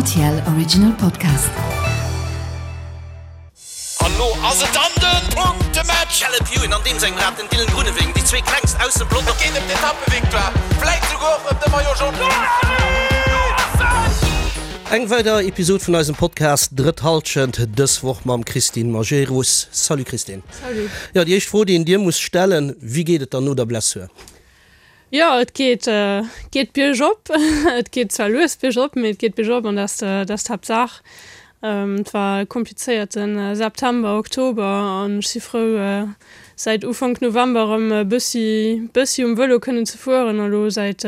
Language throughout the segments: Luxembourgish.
Rtl Original Podcast. An lo ass et dann den Punktematch! Caleb Ewan an deem sengem Rad den Dylan Groenewegen, déi zwee klengst aus dem Pelotong. Et geet ëm d'Etappevictoire, vläit souguer och ëm de Maillot Jaune. Eng weider Episod vun eisem Podcast Drëtt Halschent, dës Woch mam Christine Majerus. Salut Christine. Salut. Jo, déi éischt Fro, déi een dir muss stellen, Wéi geet et dann no der Blessur? Jo, et geet, geet biergop. Et geet zwar lues biergop, mee et geet biergop an dat ass d'Haaptsaach. Et war e komplizéierte September, Oktober an ech si frou, säit Ufank November erëm e bëssi, bëssi um Vëlo kënnen ze fueren a lo säit,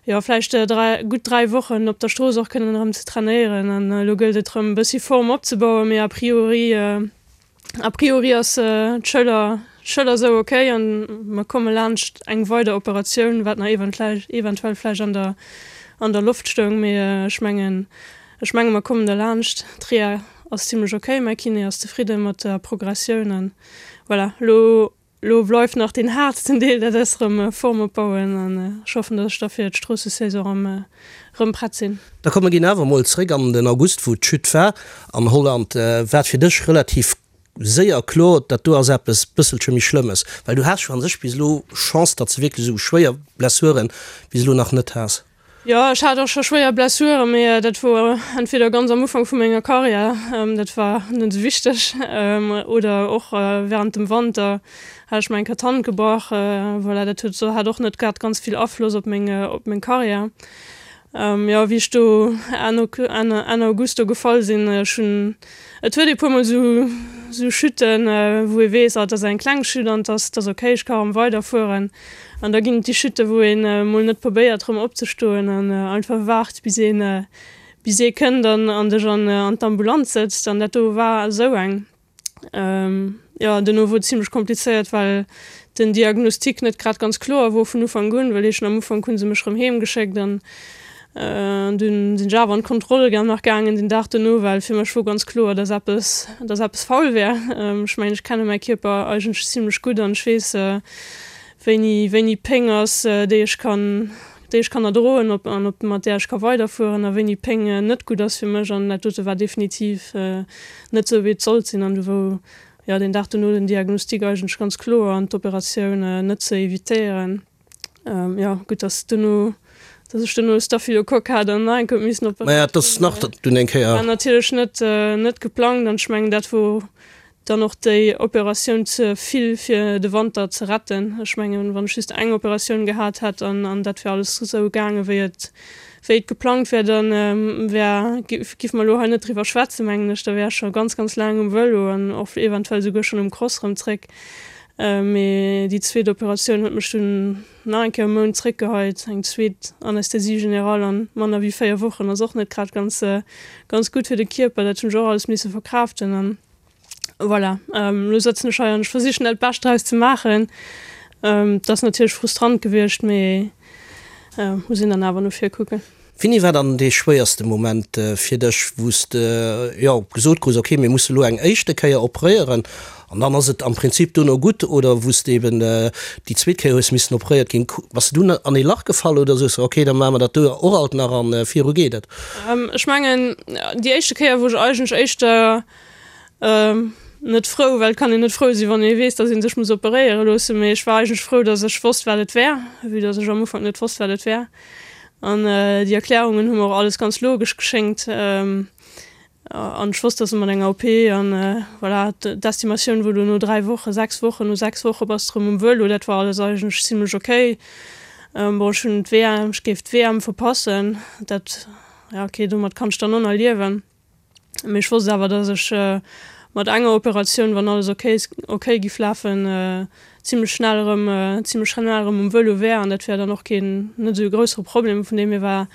jo, vläicht 3, gutt 3 Wochen op der Strooss och kënnen erëm ze trainéieren. An elo gëllt et erëm e bëssi Form opzebauen, mee a priori, A priori ass d'Schëller d'Schëller sou ok an mer komme laanscht eng weider Operatioun, wat nach eventuell vläicht an der an der Loft stoung. Mee ech mengen ech menge mer kommen derlaanscht. D'Reha ass zimlech ok, mäi Kiné ass zefridde mat der Progressioun an voilà, elo Lo bleift nach deen haartsten Deel, dat ass erëm Form opbauen an ech hoffen, dass ech da fir d'Stroossesaison erëm erëm prett sinn. Da komm mer ginn awer emol zréck an den August, wou d'Chute war an Holland. War et fir dech relativ séier kloer, dat do ass eppes bësselche méi Schlëmmes? Well du has jo an sech bis elo Chance, datt s de wierklech esou schwéier Blessuren bis elo nach net has. Jo, ech hat och scho schwéier Blessuren, mee dat wor entweder ganz am Ufank vu menger Karriär, dat war net esou wichteg, oder och während dem Wanter hat ech mer eng Kéier d'Hand gebrach. Voilà, dat huet hat och net grad ganz vill Afloss op meng op meng Karriär. Jo, wéi ech do Enn Enn August do gefall sinn, ech hunn Et huet ee puermol sou sou Chuten, wou ee weess, ah, et ass eng kleng Chute an et ass, et ass ok, ech ka erëm weiderfueren. An da ginn et déi Chuten, wou een mol net probéiert erëm opzestoen an einfach waart, bis een, bis ee kënnt an an dech an an d'Ambulanz sëtzt. An dat do war esou eng. Jo, duerno wor et zimlech komplizéiert, well den Diagnostic net grad ganz kloer wor vun Ufank un, well heeschen am Ufank hu se mech rëm heem geschéckt an dunn sinn ech awer an d'Kontroll ga nach gaangen den Dag duerno, well fir mech wor ganz kloer, dass eppes, dass eppes faul wär. Ech mengen, ech kenne mäi Kierper eigentlech zimlech gutt an ech weess, wéini, wéini Péng ass, déi ech kann, déi ech kann erdroen op an op mat där ech ka weiderfueren a wéini Péng net gutt ass fir mech an dat dote war definitiv net sou wéi et sollt sinn an du wou jo deen Dag dono den Diagnostic eigentlech ganz kloer an d'Operatioun net ze evitéieren. Jo gutt dass dono dass ech dono e Staphylocoque hat an nach eng Kéier huet missen operéiert ginn. Dass nach dunn eng Kéier. War natierlech net net geplangt an ech mengen dat wor Dann och déi Operatioun ze vill fir de Wanter ze retten. Ech mengen, wann ech just eng Operatioun gehat hätt an an dat wär alles esou gaange wéi et wéi et geplangt wär, da wär giff mer elo hei net driwwer schwätzen, mengen ech. Da wär ech scho ganz ganz laang um Vëlo an och eventuell souguer schonn um Cross rëm zréck. Mee déi zweet Operatioun huet mech dunn nach eng Kéier e Mount zréckgeheit. Eng zweet Anesthésie générale an manner wéi 4 Wochen ass och net grad ganz ganz gutt fir de Kierper. Dat hunn ech och alles misse verkraaften an Voilà, elo sëtzen ech hei an ech versichen dat Bescht draus ze maachen. Et ass natierlech frustrant gewiescht, mee muss een dann awer no vir kucken. Wéini war dann dee schwéierste Moment fir dech, wou s de jo gesot krus, ok mir musse lo eng éischte Kéier operéieren an dann ass et am Prinzip dono gutt, oder wou s de eben déi zweet Kéier hues missen operéiert ginn? Bass de dunn an ee Lach gefall oder soos de, ok da maache mer dat do och alt nach an viru geet et? Ech mengen déi éischte Kéier wou ech eigentlech éischter Net frou, well et kann een net frou sinn, wann ee weess, datt ee sech muss operéiere loossen. Mee ech war eigentlech frou, datt ech wosst, wat et wär, vue datt ech am Ufank net wosst, wat et wär. An déi Erklärungen hu mer och alles ganz logesch geschéngt. An ech wosst, datt et mat enger OP an voilà, d'Estimatioun wor do no 3 Wochen, 6 Wochen, no 6 Woche bass de erëm um Vëlo. Dat war alles eigentlech zimlech ok. Bon, ech hunn d'WM, ech géif d'WM verpassen, dat, ja ok, domat kann ech dann och nach liewen. Mee ech wosst awer, dass ech mat enger Operatioun, wann alles ok ok giff lafen, zimlech schnell erëm zimlech schnell erëm um Vëlo wär an dat wär dann och keen net esou e groussere Problem. Vun deem hier war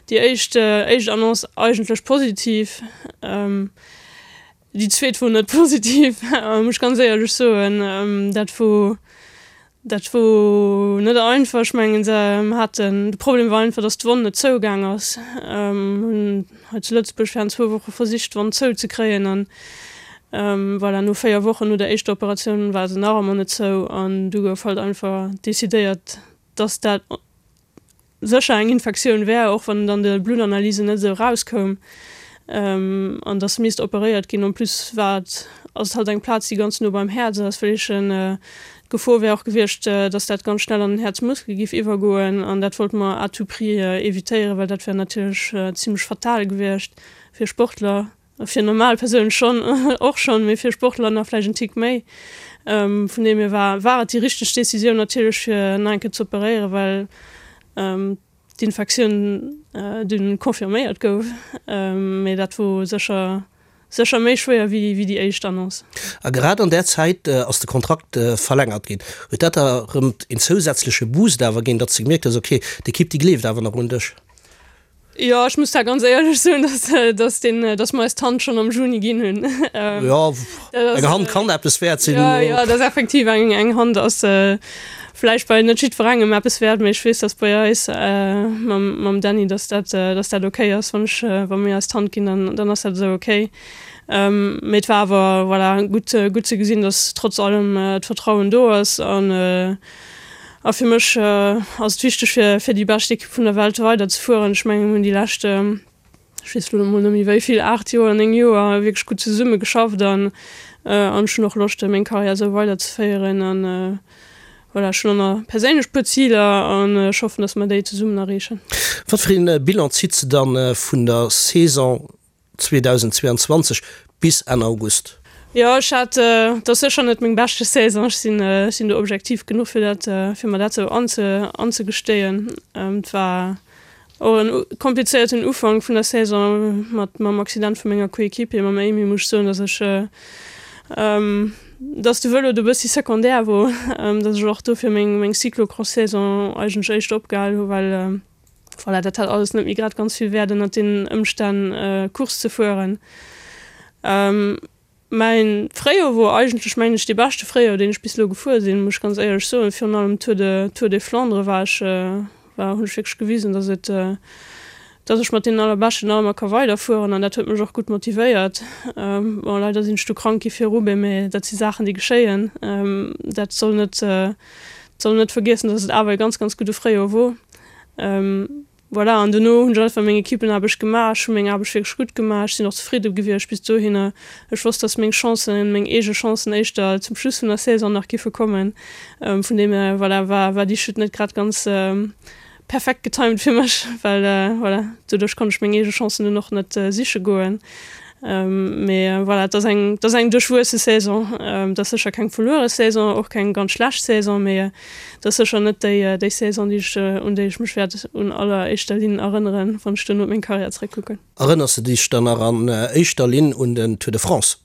déi éischt éischt Annonce eigentlech positiv. Déi zweet wor net positiv, muss ech ganz éierlech soen. Dat wor Dat wor net einfach. Ech mengen se haten, de Problem war einfach, datt d'Wonn net zougaang ass. Hunn hei zu Lëtzebuerg während zwou Woche versicht d'Wonn zou ze kréien an voilà, no 4 Wochen no der éischter Operatioun war se nach ëmmer net zou an du gouf halt einfach decidéiert, datt dat. sécher eng Infektioun wär, och wann et an de Bluttanalysen net esou erauskoum, an dass misst operéiert ginn. En plus war et, ass et halt eng Plaz, déi ganz no beim Häerz ass, well ech d'Gefor wär och gewiescht, dass dat ganz schnell an den Häerzmuskel giff iwwergoen, an dat wollte mer à tout prix evitéieren, well dat wär natierlech zimlech fatal gewiescht fir Sportler. Fir normal Persounen schonn, och schonn, mee fir Sportler nach vläicht en Tick méi. Vun deem hier war war et déi richteg Decisioun natierlech fir nach eng Kéier ze operéieren, well d'Infektioun dunn confirméiert gouf. Mee dat wor sécher sécher méi schwéier wéi wéi déi éischt Annonce. A grad an där Zäit ass de Kontrakt verlängert ginn. Huet dat der erëm een zousätzleche Boost awer ginn, datt s de gemierkt hues, ok, d'Ekipp déi gleeft awer nach un dech? Jo, ech muss da ganz éierlech soen, dass, dass deen, dass mer eis d'Hand schonn am Juni ginn hunn. Jo, eng Hand kann eppes wäert sinn. Jo, jo, dat ass effektiv eng, eng Hand ass vläicht bei net jiddwerengem eppes wäert, mee ech weess, dass bei eis mam, mam Dany, dass dat, dass dat okay ass, wann ech, wa mir eis d'Hand ginn, dann, dann ass dat esou okay. Mee et war awer, voilà, gutt, gutt ze gesinn, dass trotz allem d'Vertrauen do ass an, A fir mech ass et wichteg fir fir déi bescht Ekipp vun der Welt weider ze fueren. Ech mengen mir hunn déi lescht, ech weess elo emol net méi wéi vill, 8 Joer, 9 Joer wierklech gutt zesumme geschafft an an ech hunn och Loscht meng Karriär esou weider ze féieren an voilà, ech hunn och nach perséinlech puer Ziler an ech hoffen, datt mer déi zesummen erreechen. Wat fir een Bilan zitt se dann vun der Saison 2022 bis Enn August. Jo, ech hat, et ass sécher net meng beschte Saison, ech sinn, ech sinn do objektiv genuch fir dat, fir mer dat sou anze, anzegestéien. Et war och en komplizéierten Ufank vun der Saison mat, mam Accident vu menger Coéquipier, mam Amy, muss ech soen, datt ech, datt de Vëlo do bëssi secondaire wor, datt ech och dofir meng, meng Cyclocross-Saison eigentlech éischter opgehal hu well, Voilà, dat hat alles net méi grad ganz vill Wäert ënnert deenen Ëmstänn Course ze fueren. Mäin Fréijoer wor eigentlech, mengen ech, dee beschte Fréijoer, deen ech bis elo gefuer sinn, muss ech ganz éierlech soen. Virun allem Tour de Tour des Flandres war ech, war, hunn ech wierklech gewisen, dass et, dass ech mat deenen Allerbeschten nach ëmmer ka weiderfueren an dat huet mech och gutt motivéiert. Bon, leider sinn ech du krank gi fir Roubaix, mä dat si Saachen, déi geschéien. Dat soll net, soll net vergiessen, dass et awer e ganz, ganz gudde Fréijoer wor. Voilà, an dono hunn ech einfach meng Equippenaarbecht gemaach. Ech hu meng Aarbecht wierklech gutt gemaach. Ech sinn och zefridde gewiescht bis dohinner. Ech wosst, dass meng Chancen, meng eege Chancen éischter zum Schluss vun der Saison nach giffe kommen. Vun deem hier, voilà, war, war déi Chute net grad ganz perfekt getimed fir mech, well, voilà, doduerch konnt ech meng eege Chancen dunn och net siche goen. Mee voilà, et ass eng, et ass eng duerchwuesse Saison. Et ass sécher keng verluere Saison, och keng ganz schlecht Saison, mee et ass sécher net déi, déi Saison, déi ech, un déi ech mech wäert un alleréischter Linn erënneren, wann ech duerno op meng Karriär zeréckkucken. Erënners de dech dann nach an éischter Linn un den Tour de France?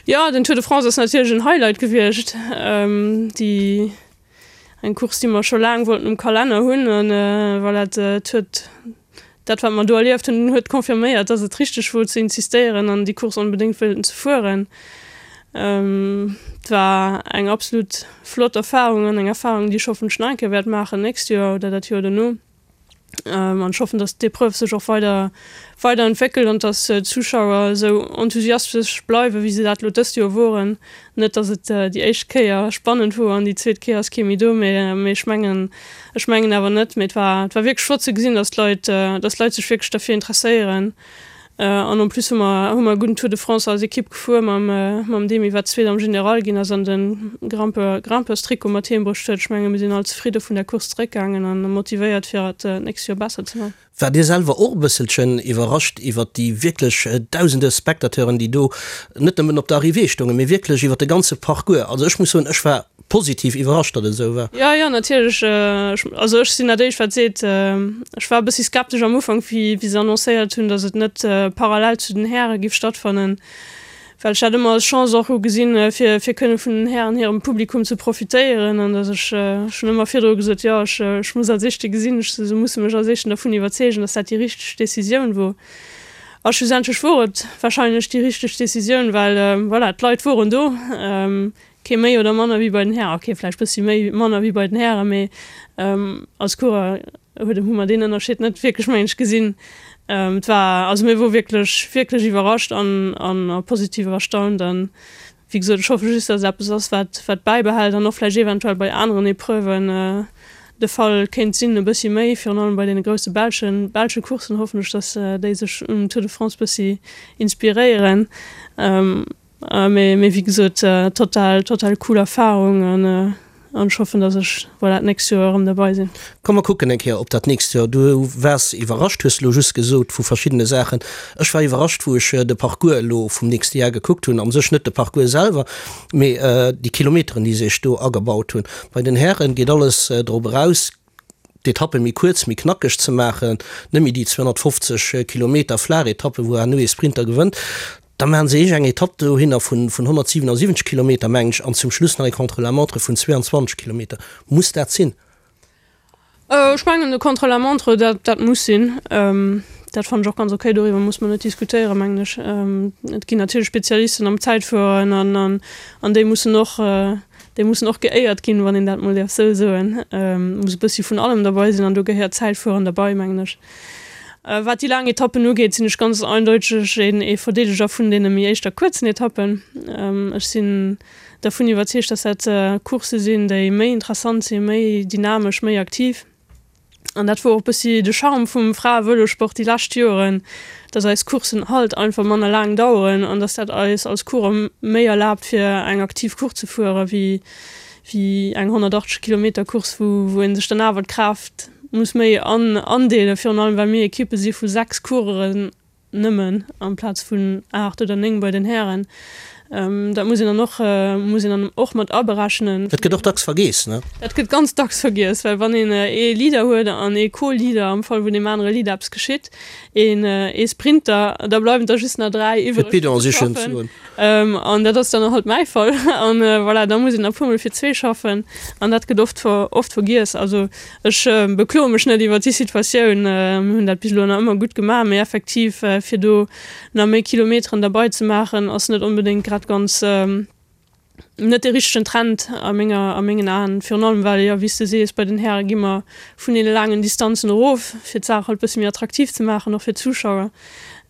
Jo, den Tour de France ass natierlech en Highlight gewiescht. Déi, eng Course, déi mer scho laang wollten um Kalenner hunn an voilà, et huet Dat wat mer do erlieft hunn, huet confirméiert, dass et richteg wor ze insistéieren an déi Course onbedéngt wëllten ze fueren. Et war eng absolut flott Erfahrung an eng Erfahrung, déi ech hoffentlech nach eng Kéier wäert maachen d'nächst Joer oder dat Joer dono. An ech hoffen, dass d'Epreuve sech och weider weider entwéckelt an dass d'Zuschauer esou enthusiastesch bleiwen, wéi se dat elo dëst Joer woren. Net dass et déi éischt Kéier spannend wor an déi zweet Kéier ass kee méi do, mee ech mengen, ech mengen awer net. Mee et war, et war wierklech flott ze gesinn, dass d'Leit, dass d'Leit sech wierklech derfir interesséieren. An en plus hu mer, hu mer e gudden Tour de France als Ekipp gefuer mam, mam Demy, wat Zweet am General ginn ass an de Grimpeur, Grimpeurs-Trikot mat heem bruecht huet. Ech menge mir sinn all zefridde vun der Course zeréckgaangen an motivéiert fir et d'nächst Joer besser ze man. Waart Dir selwer och e bësselchen iwwerrascht iwwert déi wierklech dausende Spectateuren, déi do net nëmmen op der Arrivée stoungen, mee wierklech iwwert de ganze Parcours? Also ech muss soen, ech war positiv iwwerrascht, datt et esou war. Jo, jo, natierlech. Also ech sinn dat éischt wat seet, ech war e bëssi skeptesch am Ufank, wéi wéi se annoncéiert hunn, datt et net parallel zu den Häre giff stattfannen. Well ech dat ëmmer als Chance och hu gesinn, fir fir kënne vun den Hären hirem Publikum ze profitéieren an datt ech, ech hunn ëmmer virdru gesot, jo ech ech muss als Éischte gesinn, ech se musse mech als Éischten dervun iwwerzeegen, datt dat déi richteg Decisioun wor. A schlussendlech wor et wahrscheinlech déi richteg Decisioun, well voilà, d'Leit woren do, kee méi oder manner wéi bei den Hären, ok vläicht bëssi méi manner wéi bei den Hären, mee als Coureur huet hu mer deen Ënnerscheed net wierklech mengen ech gesinn. Et war, also mir wor wierklech wierklech iwwerrascht an an a positiv erstaunt an wéi gesot ech hoffe just dass et eppes ass wat wat bäibehält an och vläicht eventuell bei aneren Epreuven. De Fall kéint sinn, e bëssi méi, virun allem bei deene grousse belschen belsche Courssen hoffen ech, datt déi sech um Tour de France bëssi inspiréieren. Mee mee wéi gesot, total total cool Erfarung an an ech hoffen, datt ech, voilà, d'nächst Joer erëm derbei sinn. Komm mer kucken eng Kéier op dat nächst Joer. Du waars iwwerrascht, hues elo just gesot, vu verschiddene Saachen. Ech war iwwerrascht, wou ech de Parcours elo vum nächste Jar gekuckt hunn. Am sech net de Parcours selwer, Mee déi Kilometeren, déi se sech do agebaut hunn. Bei den Hären geet alles drop eraus, d'Etappe méi kuerz, méi knackeg ze maachen, net méi déi 250 Kilometer flaach Etappe, wou herno ee Sprinter gewënnt. Da maachen se eech eng Etapp dohinner vun 177 Kilometer, mengen ech, an zum Schluss nach ee Contre-la-montre vun 22 Kilometer. Muss dat sinn? Ech mengen de Contre-la-montre, dat, dat muss sinn. Dat fannen ech och ganz okay. Doriwwer muss mer net diskutéieren, mengen ech. Et ginn natierlech Spezialisten am Zäitfueren an, an, an déi mussen och, déi mussen och geéiert ginn, wann een dat mol däerf esou soen. Et muss e bëssi vun allem derbei sinn an do gehéiert Zäitfueren derbei, mengen ech. Wat déi laang Etappen ugeet, sinn ech ganz eindeuteg een, ee Verdeedeger vun deene méi éischter kuerzen Etappen. Ech sinn dervun iwwerzeegt, dass dat Coursse sinn, déi méi interessant sinn, méi dynamesch, méi aktiv. An dat wor och bëssi de Charme vum Frae-Vëlosport déi lescht Joren, dass eis Courssen halt einfach manner laang daueren an dass dat eis als Coureur méi erlaabt, fir eng aktiv Course ze fuere wéi wéi eng 180 Kilometer Course, wou wou ee sech dann awer d'Kraaft muss méi an andeelen, virun allem well mir Ekippe si vu 6 Coureuren nëmmen amplaz vun 8 oder 9 bei den Hären. Dat muss een dann och, muss een dann och mat aberechnen. Dat gëtt och dacks vergeess, ne? Dat gëtt ganz dacks vergiess, well wann een ee Leader huet an ee Co-Leader, am Fall wou deem anere Leader eppes geschitt, een ee Sprinter, da bleiwen der just nach 3 iwwreg fir ze schaffen. An dat ass dann halt mäi Fall. An voilà, da muss een e puermol fir zwee schaffen an dat gëtt oft, oft vergiess. Also Ech bekloe mech net iwwert déi Situatioun. Mir hunn dat bis elo nach ëmmer gutt gemaach, mee effektiv, fir do nach méi Kilometeren derbei ze maachen, ass net onbedéngt grad ganz, net dee richtegen Trend a menger, a mengen Aen. Virun allem well, jo, wéi s de sees, bei den Häre gi mer vun deene laangen Distanzen erof, fir d'Saach halt bësse méi attraktiv ze maachen, och fir d'Zuschauer.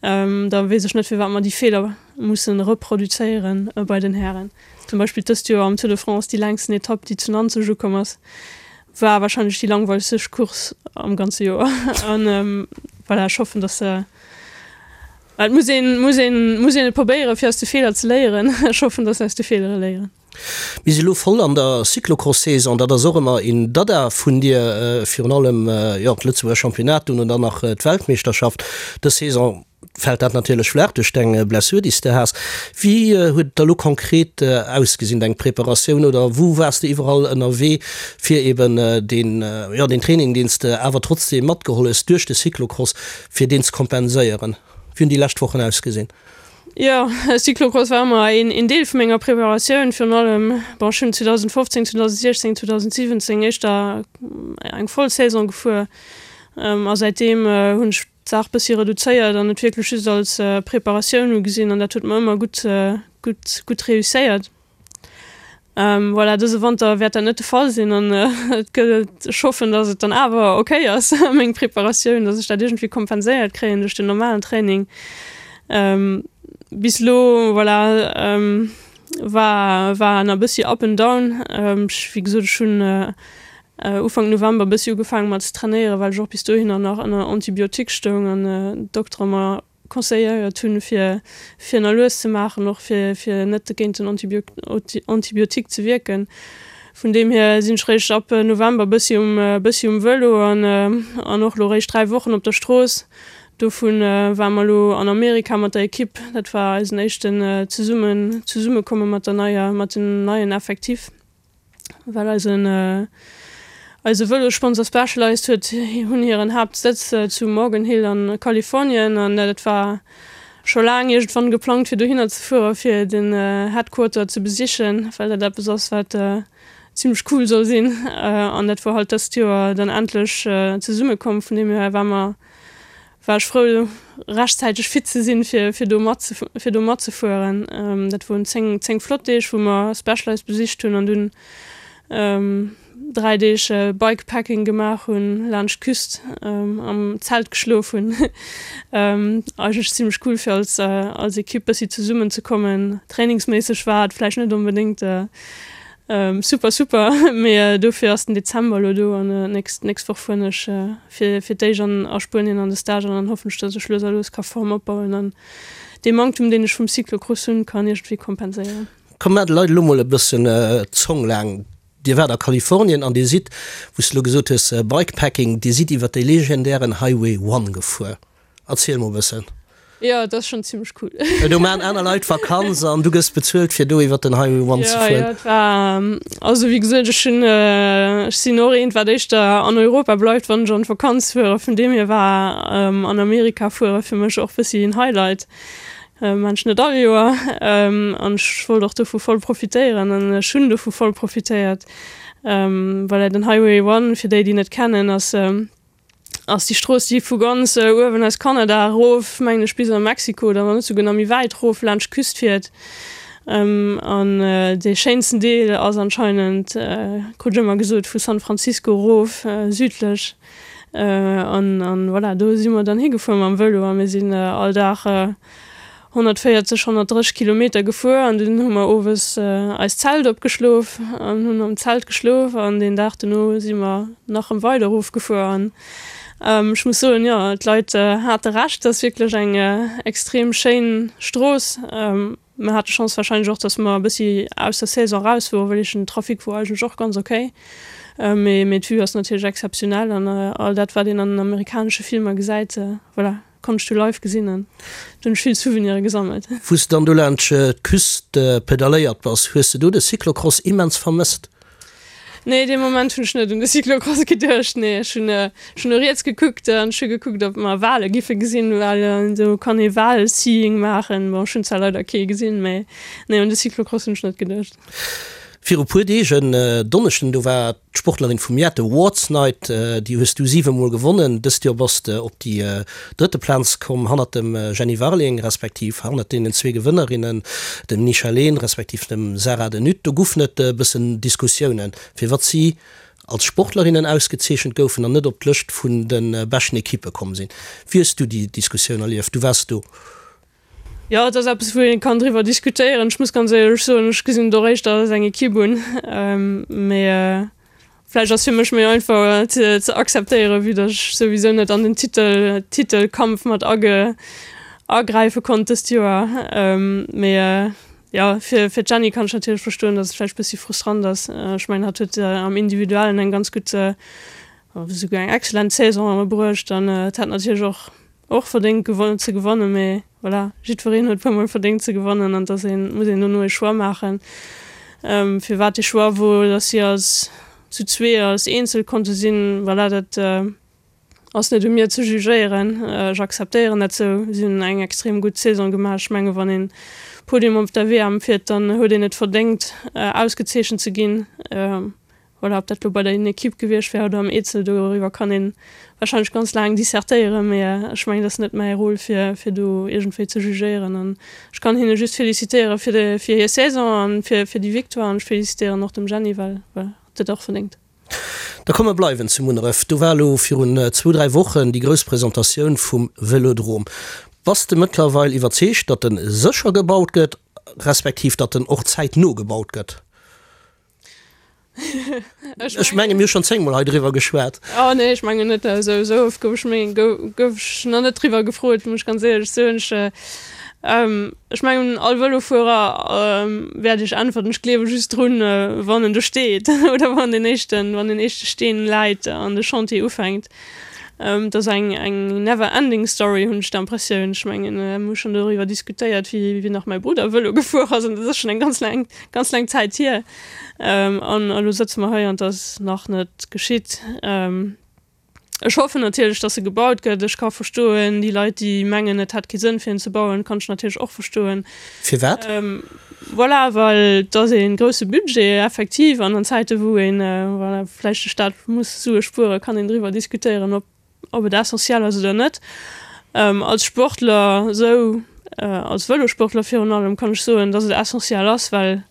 Da weess ech net, firwat mer déi Feeler musse reproduzéieren bei den Hären. Zum Beispill dëst Joer am Tour de France, déi längsten Etapp, déi zu Nanzeg ukomm ass, war wahrscheinlech déi langweilegste Course am ganze Joer. An voilà, ech hoffen, dass se, et muss een, muss een, muss een et probéieren, fir aus de Feeler ze léieren. Ech hoffen, dass se aus de Feelere léieren. Mir si elo voll an der Cyclocross-Saison. Dat ass och ëmmer een Dada vun dir, virun allem, jo, d'Lëtzebuerger Championnat, dunn dann nach d'Weltmeeschterschaft. Dës Saison fält dat natierlech flaach duerch deng Blessur, déi s de has. Wéi huet et da lo konkret ausgesinn, deng Preparatioun, oder wou waars de iwwerall ënnerwee, fir eben deen, jo, deen Training, deen s de awer trotzdeem matgeholl hues duerch de Cyclocross, fir deen ze kompenséieren? Wéi hunn déi lescht Wochen ausgesinn? Jo, Cyclocross war ëmmer een Deel vu menger Preparatioun, virun allem, bon, ech hunn 2015, 2016, 2017 éischter eng voll Saison gefuer a säitdeem hunn ech d'Saach bëssi reduzéiert an et wierklech just als Preparatioun ugesinn an dat huet mer ëmmer gutt, gutt, gutt reusséiert. Voilà, dëse Wanter wäert dat net de Fall sinn an et gëtt, ech hoffen, datt et dann awer ok ass, meng Preparatioun, datt ech dat iergendwéi kompenséiert kréien duerch den normalen Training. Bis elo, voilà, war, war en e bëssi up and down. Ech, wéi gesot, ech hunn Ufank November e bëssi ugefaange mat ze trainéieren, well ech och bis dohinner nach ënner Antibiotique stoung an d'Doktere mer conseilléiert hunn, fir fir na lues ze maachen, och fir fir net géint den Antibiotique ze wierken. Vun deem hier sinn ech réischt ab November bëssi um bëssi um Vëlo an an och lo réischt 3 Wochen op der Strooss. Dovun ware mer lo an Amerika mat der Ekipp. Dat war eisen éischten zesummen Zesummekomme mat der neier mat dem neien Effectif. Well eisen eise Vëlossponsor Specialized huet hunn hiren Haaptsëtz zu Morgan Hill an Kalifornien an dat war scho laang iergendwann geplangt fir dohinner ze fuere fir den Headquarter ze besichen, well dat eppes ass wat zimmlech cool soll sinn an dat wor halt dëst Joer dann endlech zesumme komm. Vun deem hier war mer war ech frou rechtzäiteg fit ze sinn fir fir do mat fir do matzefueren. Dat woren 10 10 flott Deeg wou mer Specialized besicht hunn an dunn 3 Deeg Bikepacking gemaach hunn laanscht d'Küst am Zelt geschlof hunn. Eigentlech zimmlech cool fir als als Equipe bëssi zesummen ze kommen. Trainingsméisseg war et vläicht net onbedéngt. Super super, mee dofir ass den Dezember elo do an nächst nächst Woch fueren ech fir fir d'éischt an a Spuenien an de Stage an dann hoffen ech, dass ech lues a lues ka Form opbauen an dee Manktum deen ech vum Cyclocross hunn kann iergendwéi kompenséieren. Komm maach de Leit elo mol e bëssen d'Zong laang. Dir waart a Kalifornien an Dir sidd, wou s de elo gesot hues Bikepacking, Dir sidd iwwer déi legendären Highway One gefuer. Erziel mol e bëssen. Jo, et ass schonn zimmlech cool. Do maachen aner Leit Vakanz an du gëss bezuelt fir do iwwer den Highway One ze fueren. Jo, jo, et war, also wéi gesot, ech hunn, ech sinn och eent wat éischter an Europa bleift wann ech an d'Vakanz fueren. Vun deem hier war an Amerika fuere fir mech och bëssi en Highlight. Maan ech net all Joer an ech wollt och dovu voll profitéieren an ech hunn dovu voll profitéiert. Voilà, den Highway One, fir déi déi net kennen, ass ass déi Strooss, déi vu ganz uewen aus Kanada erof, mengen ech, bis a Mexiko oder wann net souguer nach méi wäit erof laanscht d'Küst fiert. An dee schéinsten Deel ass anscheinend, krut ech ëmmer gesot, vu San Francisco erof südlech. An voilà, do si mer dann higefuer mam Vëlo a mir sinn all Dag 140, 130 Kilometer gefuer an dunn hu mer owes eist Zelt opgeschlof an hunn am Zelt geschlof an deen Dag dono si mer nach rëm weider erof gefuer an ech muss soen, jo, d'Leit hate Recht, et ass wierklech eng extrem schéin Strooss. Mer hate Chance warscheinlech och, dass mer e bëssi aus der Saison raus woren, well ech den Trafic wor eigentlech och ganz ok, mee mee d'Vue ass natierlech exzeptionell an all dat wat een an den amerikanesche Filmer gesäit, voilà. Konnt ech du live gesinn an do hunn ech vill Souvenire gesammelt. Wou s de dann do laanscht d'Küst pedalléiert bass, hues de do de Cyclocross immens vermësst? Nee, dee Moment hunn ech net un de Cyclocross geduecht. Nee, ech hunn ech hunn no riets gekuckt an ech hu gekuckt, ob mer Wale giffe gesinn, well do kann ee Wal-Seeing maachen. Bon, ech hunn zwar leider kee gesinn, mee nee, un de Cyclocross hunn ech net geduecht. Viru puer Deeg, en Donneschden, do war D'Sportlerin vum Joer, d'Awards Night, déi hues du 7 mol gewonnen. Dëst Joer bass de op déi drëtte Plaz komm, hannert dem Jenny Warling, respektiv hannert deenen zwee Gewënnerinnen, dem Nisha Lehn, respektiv dem Sarah De Nutte. Do goufen et e bëssen Diskussiounen, firwat si als Sportlerinnen ausgezeechent goufen an net op d'Lëscht vun de beschten Ekippe komm sinn. Wéi hues du déi Diskussioun erlieft? Du waars do. Jo, et ass eppes, wou ee kann driwwer diskutéieren. Ech muss ganz éierlech soen, ech gesinn et och éischter als eng Ekipp un. Mee vläicht ass fir mech méi einfach ze akzeptéieren, vue datt ech souwisou net an den Titel, Titelkampf mat age, agräife konnt dëst Joer. Mee jo, fir, fir d'Jenny kann ech natierlech verstoen, datt et vläicht bëssi frustrant ass. Ech mengen, hatt huet am Individuellen eng ganz gutt, esouguer eng excellent Saison bruecht an et hätt natierlech och Och verdéngt gewon ze gewannen, mee voilà, jiddwereen huet puer mol verdéngt ze gewannen an dass een, muss een dono ee Choix maachen. Firwat dee Choix wor, dass si als zu zwee als Eenzel konnte sinn, voilà, dat ass net u mir ze jugéieren. Ech akzeptéieren dat sou. Si hunn eng extrem gutt Saison gemaach. Ech menge wann een Podium op der WM fiert, dann huet een et verdéngt ausgezeechent ze ginn. Voilà, ob dat lo bei der Equipe gewiescht wär oder am Eezel, doriwwer kann ee warscheinlech ganz laang dissertéieren, mee ech mengen, dat ass net mäi Rôle, fir, fir do iergendwéi ze jugéieren. An ech kann hinne just felicitéiere fir de, fir hir Saison an fir, fir déi Victoire an ech felicitéieren och dem Jenny, well, voilà, hatt huet och verdéngt. Da komm mer bleiwen zu Munneref. Do war elo virun zwou, dräi Wochen déi grouss Presentatioun vum Vëlodrom. Bass de mëttlerweil iwwerzeegt, datt en sécher gebaut gëtt, respektiv datt en och zäitno gebaut gëtt? Ech menge mir hu schonn zéngmol hei driwwer geschwat. Oh nee, ech mengen net. Esou esou oft gouf ech meng gouf ech nach net driwwer gefrot, muss ech ganz éierlech soen. Ech ech mengen all Vëlofuerer wäert iech äntwerten, ech gleewe just drun, wann en do steet oder wann den éischten wann den éischte Steen läit an de Chantier ufänkt. Et ass eng eng never ending story, hunn ech d'Impressioun. Ech mengen, mir hu schonn doriwwer diskutéiert, wéi wéi nach mäi Brudder Vëlo gefuer ass an dat ass schonn eng ganz laang ganz laang Zäit hier. An elo sëtze mer hei an et ass nach net geschitt. Ech hoffen natierlech, datt e gebaut gëtt. Ech ka verstoen, déi Leit, déi mengen, et hätt kee Sënn fir en ze bauen, kann ech natierlech och verstoen. Firwat? Voilà, well et ass ee grousse Budget effektiv an an Zäite wou een, voilà, vläicht de Staat muss Sue spueren, kann een driwwer diskutéieren, ob ob et essentiell ass oder net. Als Sportler esou, als Vëlosportler virun allem, kann ech soen, dass et essentiell ass, well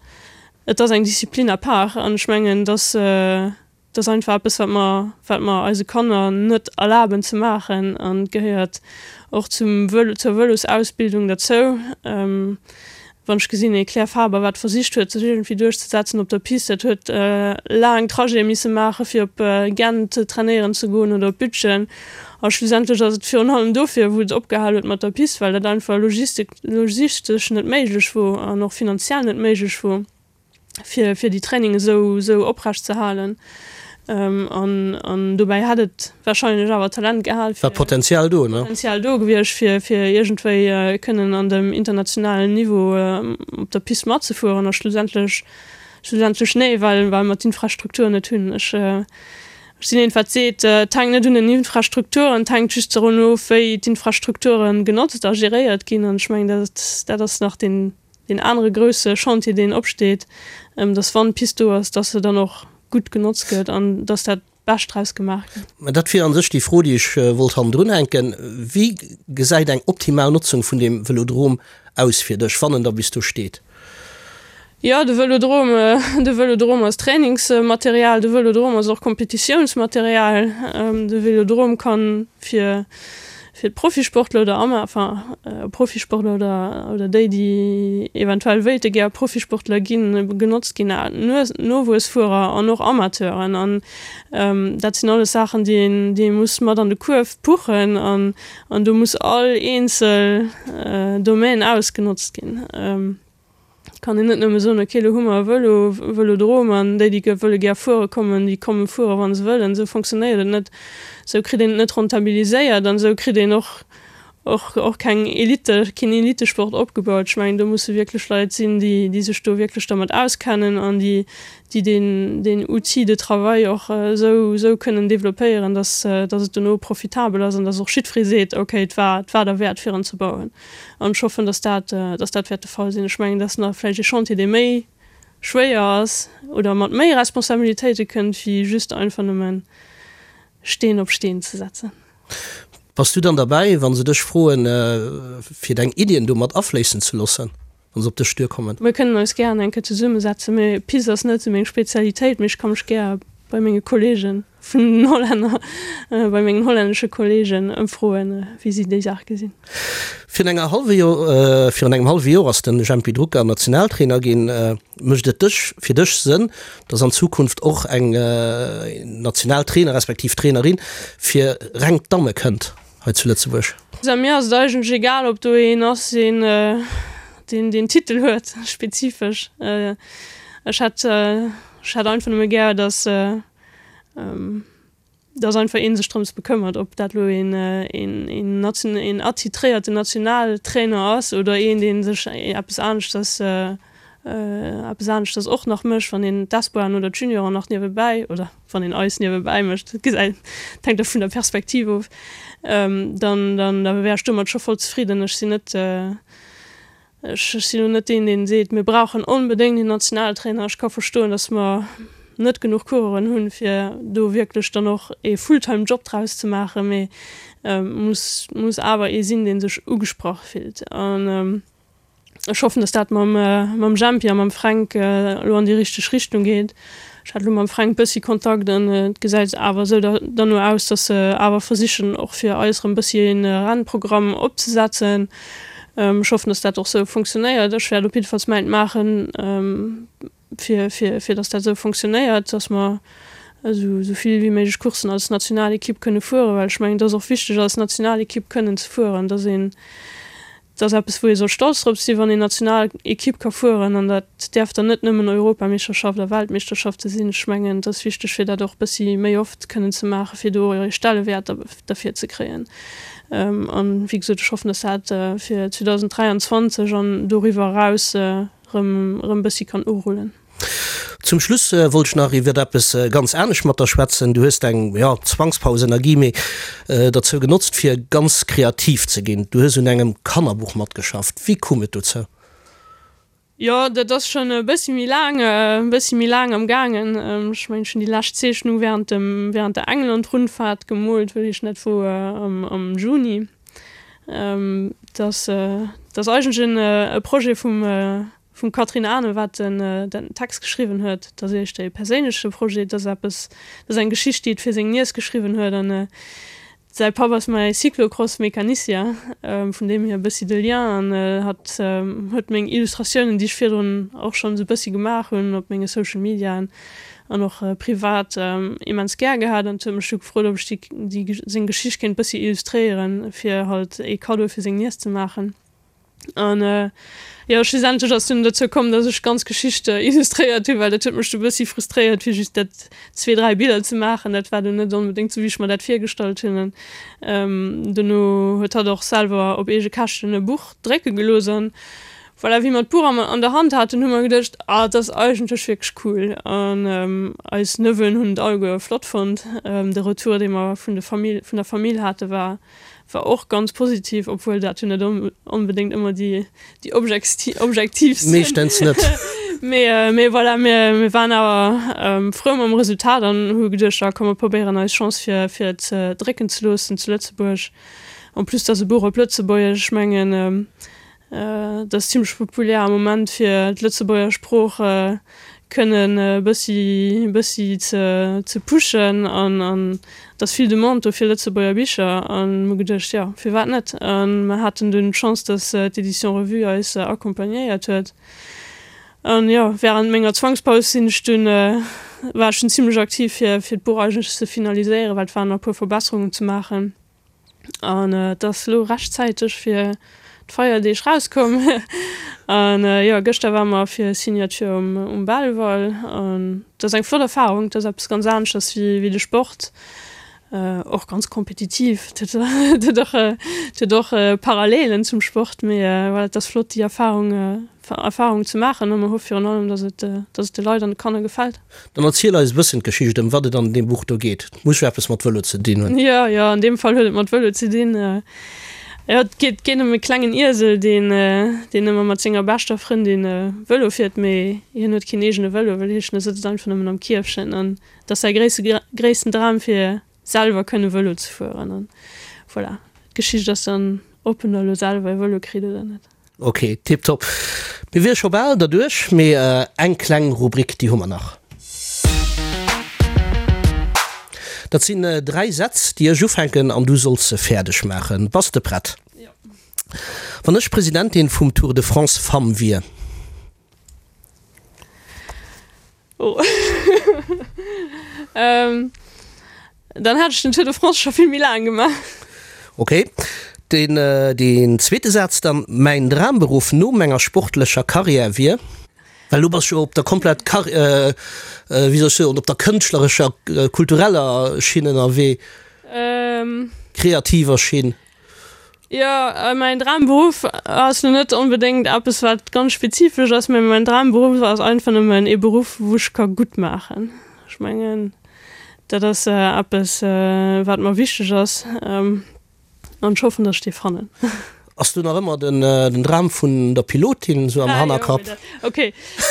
et ass eng Disziplin à part an ech mengen, dass dat ass einfach eppes, wat mer, wat mer eise Kanner net erlaben ze maachen an et gehéiert och zum Vëlo, zur Vëlosausbildung derzou. Wann ech gesinn, ee Claire Faber, wat versicht huet, sech iergendwéi duerchzesetzen op der Piste, dat huet laang Trajete misse maache fir op Gent trainéieren ze goen oder op Bütgen. A schlussendlech ass et virun allem dofir, wou et opgehal huet mat der Piste, well dat einfach logistesch net méiglech wor an och finanziell net méiglech wor. fir, fir déi Training esou, esou oprecht ze halen. An, an dobäi hätt et wahrscheinlech awer Talent gehal fir. War Potenzial do, ne? Potenzial do gewiescht, fir, fir iergendwéi kënnen an dem internationalen Niveau op der Pist matzefueren. A schlussendlech, schlussendlech nee, well, well mer d'Infrastruktur net hunn. Ech, ech sinn een, wat seet, et hänkt net un den Infrastrukturen, et hänkt just dorun of, wéi d'Infrastrukture genotzt a geréiert ginn. An ech mengen, dat, dat ass nach deen, Deen anere grousse Chantier, deen opsteet, dass wann d'Pist do ass, dass se dann och gutt genotzt gëtt an dass dat Bescht draus gemaach gëtt. Mä dat wier a sech déi Fro, déi ech wollt hannendrun hänken. Wéi gesäit eng optimal Notzung vun deem Vëlodrom aus fir dech, wann en da bis do steet? Jo, de Vëlodrom, de Vëlodrom ass Trainingsmaterial, de Vëlodrom ass och Kompetitiounsmaterial. De Vëlodrom kann fir fir d'Profisportler oder Ama, enfin Profisportler oder oder déi, déi eventuell wéilte gär Profisportler ginn, genotzt ginn, Nowuessfuerer an och Amateuren. An dat sinn alles Saachen, déi een, déi ee muss mat an de Kuerf puchen an an do muss all eenzel Domaine ausgenotzt ginn. Kann een net nëmme soen, ok, elo hu mer e Vëlo, Vëlodrom, an déi, déi wëlle gär fuere kommen, déi komme fuere wa se wëllen. Esou fonctionnéiert et net. Esou kritt een et net rentabiliséiert an esou kritt een och, och, och keng Elite, keen Elitesport opgebaut. Ech mengen, do musse wierklech Leit sinn, déi, déi sech do wierklech dermat auskennen an déi, déi deen, deen Outil de travail och esou, esou kënnen développéieren, dass, dass et dono profitabel ass an dass och jiddweree seet, ok, et war, et war derwäert fir en ze bauen. An ech hoffen, dass dat, dass dat wäert de Fall sinn. Ech mengen, dat ass nach vläicht ee Chantier, dee méi schwéier ass oder mat méi Responsabilitéite kënnt, wéi just einfach nëmme Steen op Steen ze setzen. Bass du dann derbäi, wa se dech froen, fir deng Iddien do mat afléissen ze loossen, wa se op dech duerkommen? Mir kënnen eis gären eng Kéier zesummesetzen. Mee Piste ass net esou meng Spezialitéit, mee ech ka mech gär bei menge Kollegen vun den Hollänner, bei mengen hollännesche Kollegen ëmfroen, wéi si déi Saach gesinn. Virun enger hallwe Joer, virun engem hallwe Joer ass de Jempy Drucker Nationaltrainer ginn. Mécht et dech, fir dech Sënn, datt an Zukunft och eng Nationaltrainer respektiv Trainerin fir reng d'Damme kënnt hei zu Lëtzebuerg? Also mir ass et eigentlech egal, ob do een ass, deen deen deen Titel huet spezifesch. Ech hätt ech hätt einfach nëmme gär, datt dass einfach ee sech drëms bekëmmert, ob dat elo een, een, een attitréierten Nationaltrainer ass oder een, dee sech eppes aneschters, eppes aneschters och nach mécht, wann een d'Espoiren oder d'Junioren nach niewebäi, oder wann een eis niewebäi mécht, dat gesäit, dat hänkt da vun der Perspektiv of, dann, dann da wär ech domat scho voll zefridden. Ech sinn net, Ech sinn elo net deen, deen seet, mir brauchen onbedéngt een Nationaltrainer. Ech ka verstoen, datt mer net genuch Coureuren hunn, fir do wierklech dann och ee Fulltime-Job draus ze maachen, mee et muss, muss awer ee sinn, dee sech ugesprach fillt. An ech hoffen, datt dat mam, mam Jempy a mam Fränk elo an déi richteg Richtung geet. Ech hat elo mam Fränk bëssi Kontakt an et gesäit awer esou derno aus, datt se awer versichen och fir eis erëm bëssi e Rennprogramm opzesetzen. Ech hoffen, datt dat och esou funktionéiert. Ech wäert op jiddefalls mäint maachen, fir fir datt dat esou funktionéiert, datt mer esou esou vill wéi méiglech Courssen als Nationalekipp kënne fueren, well ech mengen, et ass och wichteg als Nationalekipp kënnen ze fueren, datt een Dat ass eppes, wou ee soll stolz drop sinn, wann een Nationalekipp ka fueren. An dat däerf dann net nëmmen Europameeschterschaft a Weltmeeschterschafte sinn. Ech mengen, et ass wichteg, fir dat och e bëssi méi oft kënnen ze maachen, fir do e Stellewäert derfir ze kréien. An, wéi gesot, ech hoffen, dass dat fir 2023 an doriwwer eraus erëm e bëssi kann urullen. Zum Schluss wollt ech nach iwwert eppes ganz anescht mat der schwätzen. Du hues deng, jo, Zwangspaus ënner Guillemets, derzou genotzt fir ganz kreativ ze ginn. Du hues un engem Kannerbuch matgeschafft. Wéi koum et dozou? Jo, dat ass schonn e bëssi méi laang, e bëssi méi laang am gaangen. Ech mengen, ech hunn déi lescht Zeechnung während dem, während der England-Rundfahrt gemoolt, wëll ech net wou, am Juni. Dat ass, dat ass eigentlech en e Projet vum, Vum Catherine Arno, wat den den Text geschriwwen huet. Dat ass éischter ee perséinleche Projet, dat ass eppes, dat ass eng Geschicht, déi et fir seng Niess geschriwwen huet. An Säi Papp ass mäi Cyclocross-Mecanicien, vun deem hier e bëssi de Lien, an hatt huet meng Illustratiounen, déi ech virdrun och schonn esou bëssi gemaach hunn op menge Social Mediaen an och privat, immens gär gehat an huet mech du gefrot, ob ech déi seng Geschicht kéint bëssi illustréieren, fir halt ee Kaddo fir seng Niess ze maachen. An jo, schlussendlech ass dunn dozou komm, dass ech d'ganz Geschicht illustréiert hunn, well dat huet mech du bëssi frustréiert, fir just dat zwee, dräi Biller ze maachen. Dat war dunn net onbedéngt sou, wéi ech mer dat virgestallt hunn. An dono huet hatt och selwer op eege Käschten e Buch drécke gelooss. An voilà, wéi mer d'Buch an der Hand haten, hu mer geduecht, ah, et ass eigentlech wierklech cool. An eis Neveuxen hunn et alleguer flott fonnt. De Retour, dee mer vun de Famill, vun der Famill hate war war och ganz positiv, obwuel dat jo net onbedéngt ëmmer déi déi objektiivst sinn. Meeschtens net. Mee mee voilà, mir mir waren awer frou mam Resultat an hu geduecht, ah komm mer probéieren eis Chance fir fir et drécken ze loossen zu Lëtzebuerg. En plus et ass e Buch op Lëtzebuergesch, ech mengen Et ass zimlech populär am Moment fir d'Lëtzebuerger Sprooch kënnen e bëssi bëssi ze ze pushen an an et ass vill Demande do fir Lëtzebuerger Bicher an mir hu geduecht, jo firwat net? An mer haten dunn d'Chance, datt d'Édition Revue eis accompagnéiert huet an jo während menger Zwangspaus sinn ech dunn war ech dunn zimlech aktiv fir fir d'Buch eigentlech ze finaliséieren, well et waren nach e puer Verbesserungen ze maachen. An et ass elo rechtzäiteg fir d'Feierdeeg rauskomm. An jo, gëschter ware mer fir Signature um, um Belval. An et ass eng flott Erfarung. Et ass eppes ganz aneschters wéi, wéi de Sport. Och ganz kompetitiv. Et huet, et huet och, et huet och Parallelen zum Sport. Mee voilà, et ass flott déi Erfarung Erfarung ze maachen. A mer hoffe virun allem, dass et, dass et de Leit an de Kanner gefält. Dann erziel eis e bëssen d'Geschicht, ëm wat et an deem Buch do geet. Et muss jo eppes mat Vëlo ze dinn hunn. Jo, jo, an deem Fall huet et mat Vëlo ze dinn. Jo, et geet, geet ëm e klengen Iesel, deen, deen ëmmer mat senger beschter Frëndin Vëlo fiert, mee hien huet keen eegene Vëlo, well hien sëtzt einfach nëmmen am Kierfchen. An et ass säi gréisste, gréissten Dram, fir selwer kënne Vëlo ze fueren. An voilà, d'Geschicht ass dann, ob en da elo selwer e Vëlo kritt oder net. Ok, tiptop. Mir wiere scho bal derduerch, mee eng kleng Rubrik, déi hu mer nach. Dat sinn 3 Sätz, déi ech ufänken an du solls se fäerdeg maachen. Bass de prett? Jo. Wann ech Presidentin vum Tour de France Femmes wier. Oh. ähm, dann hat ech den Tour de France scho vill méi laang gemaach. Ok. Den, äh, den zweete Saz dann, Mäin Dramberuff no menger sportlecher Karriär wier. Well du bass jo op der komplett Kar äh, äh, wéi soll ech soen, op der kënschtlerescher, kultureller Schinn ënnerwee. Ähm. Kreativer Schinn. Jo, mäin Dramberuff ass lo net onbedéngt eppes wat ganz spezifesch ass, mä mäin Dramberuff ass einfach nëmmen ee Beruff wou ech ka gutt maachen. Ech mengen dat ass eppes wat mer wichteg ass an ech hoffen, datt ech dee fannen. Ass do nach ëmmer den Dram vun der Pilotin sou am Hannerkapp? Ok,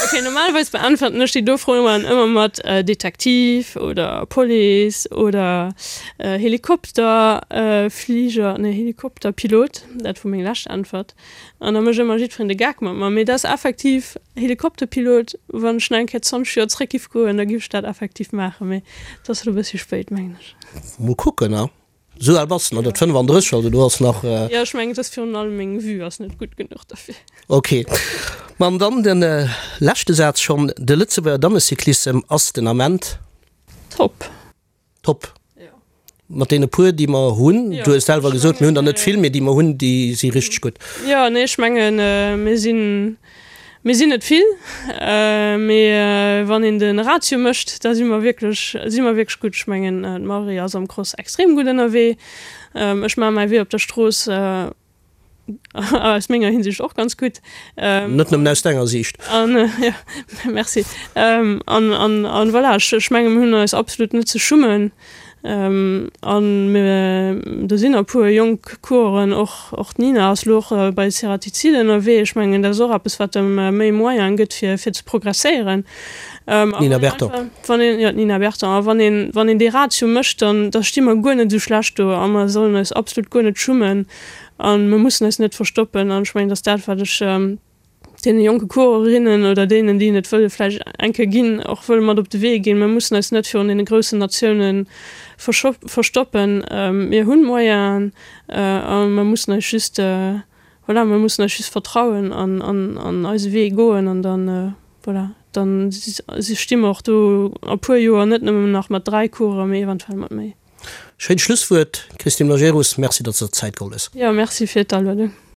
ok, normalerweis beäntwerten ech déi do Froen ëmmer mat Detektiv oder Police oder Helikopter Fliger, nee Helikopterpilot, dat wor meng lescht Äntwert. An da mécht ëmmer jiddwereen de Gag mat mer. Mee dat ass effektiv Helikopterpilot, wann ech nach eng Kéier 20 Joer zréck giff goen, da giff ech dat effektiv maachen, mee et ass elo e bëssi spéit, mengen ech. Mol kucken, a Sou al bass de nach net, 35, also do ass nach. Jo, ech mengen, et ass virun allem meng Vue ass net gutt genuch derfir. Ok, ma an dann de leschte Saz schonn, De Lëtzebuerger Dammecyclissem ass den Ament. Top. Top. Jo. Mat deene puer, déi mer hunn. Jo. Du hues selwer gesot, mir hunn der net vill, mee déi mer hunn, déi si richteg gutt. Jo, nee, ech mengen, mir sinn Mir sinn net vill, mee wann een de Ratio mécht, da si mer wierklech, si mer wierklech gutt. Ech mengen, d'Marie ass am Cross extrem gutt ënnerwee. Ech maache mäi Wee op der Strooss aus menger Hinsicht och ganz gutt. Net nëmmen aus denger Siicht. An, jo, merci. An, an, an voilà, ech menge mir hunn eis absolut net ze schummen. An mir, do sinn e puer jonk Coureuren, och, och d'Nina ass elo och bei Ceratizid ënnerwee. Ech mengen, dat ass och eppes, wat em méi Moyene gëtt, fir, fir ze progresséieren. D'Nina Berton. Wann een, jo, d'Nina Berton. A wann een, wann een dee Ratio mécht, dann, da sti mer guer net esou schlecht do a mer sollen eis absolut guer net schummen a mer mussen eis net verstoppen. An ech mengen, dat ass dat, wat ech. Deene jonke Courerinnen oder deenen, déi et wëlle vläicht eng Kéier ginn, och wëlle mat op de Wee ginn, Mir mussen eis net virun deene groussen Natioune verstoppen. Mir hunn Moyenen a mer mussen eis just, voilà, mer mussen eis just vertrauen an an eise Wee goen an dann, voilà, dann sti mer och do a puer Joer net nëmmen nach mat 3 Coureuren, mee eventuell mat méi. Schéint Schlusswuert, Christine Majerus. Merci, datt s de der d'Zäit geholl hues. Jo, merci fir d'Aluedung.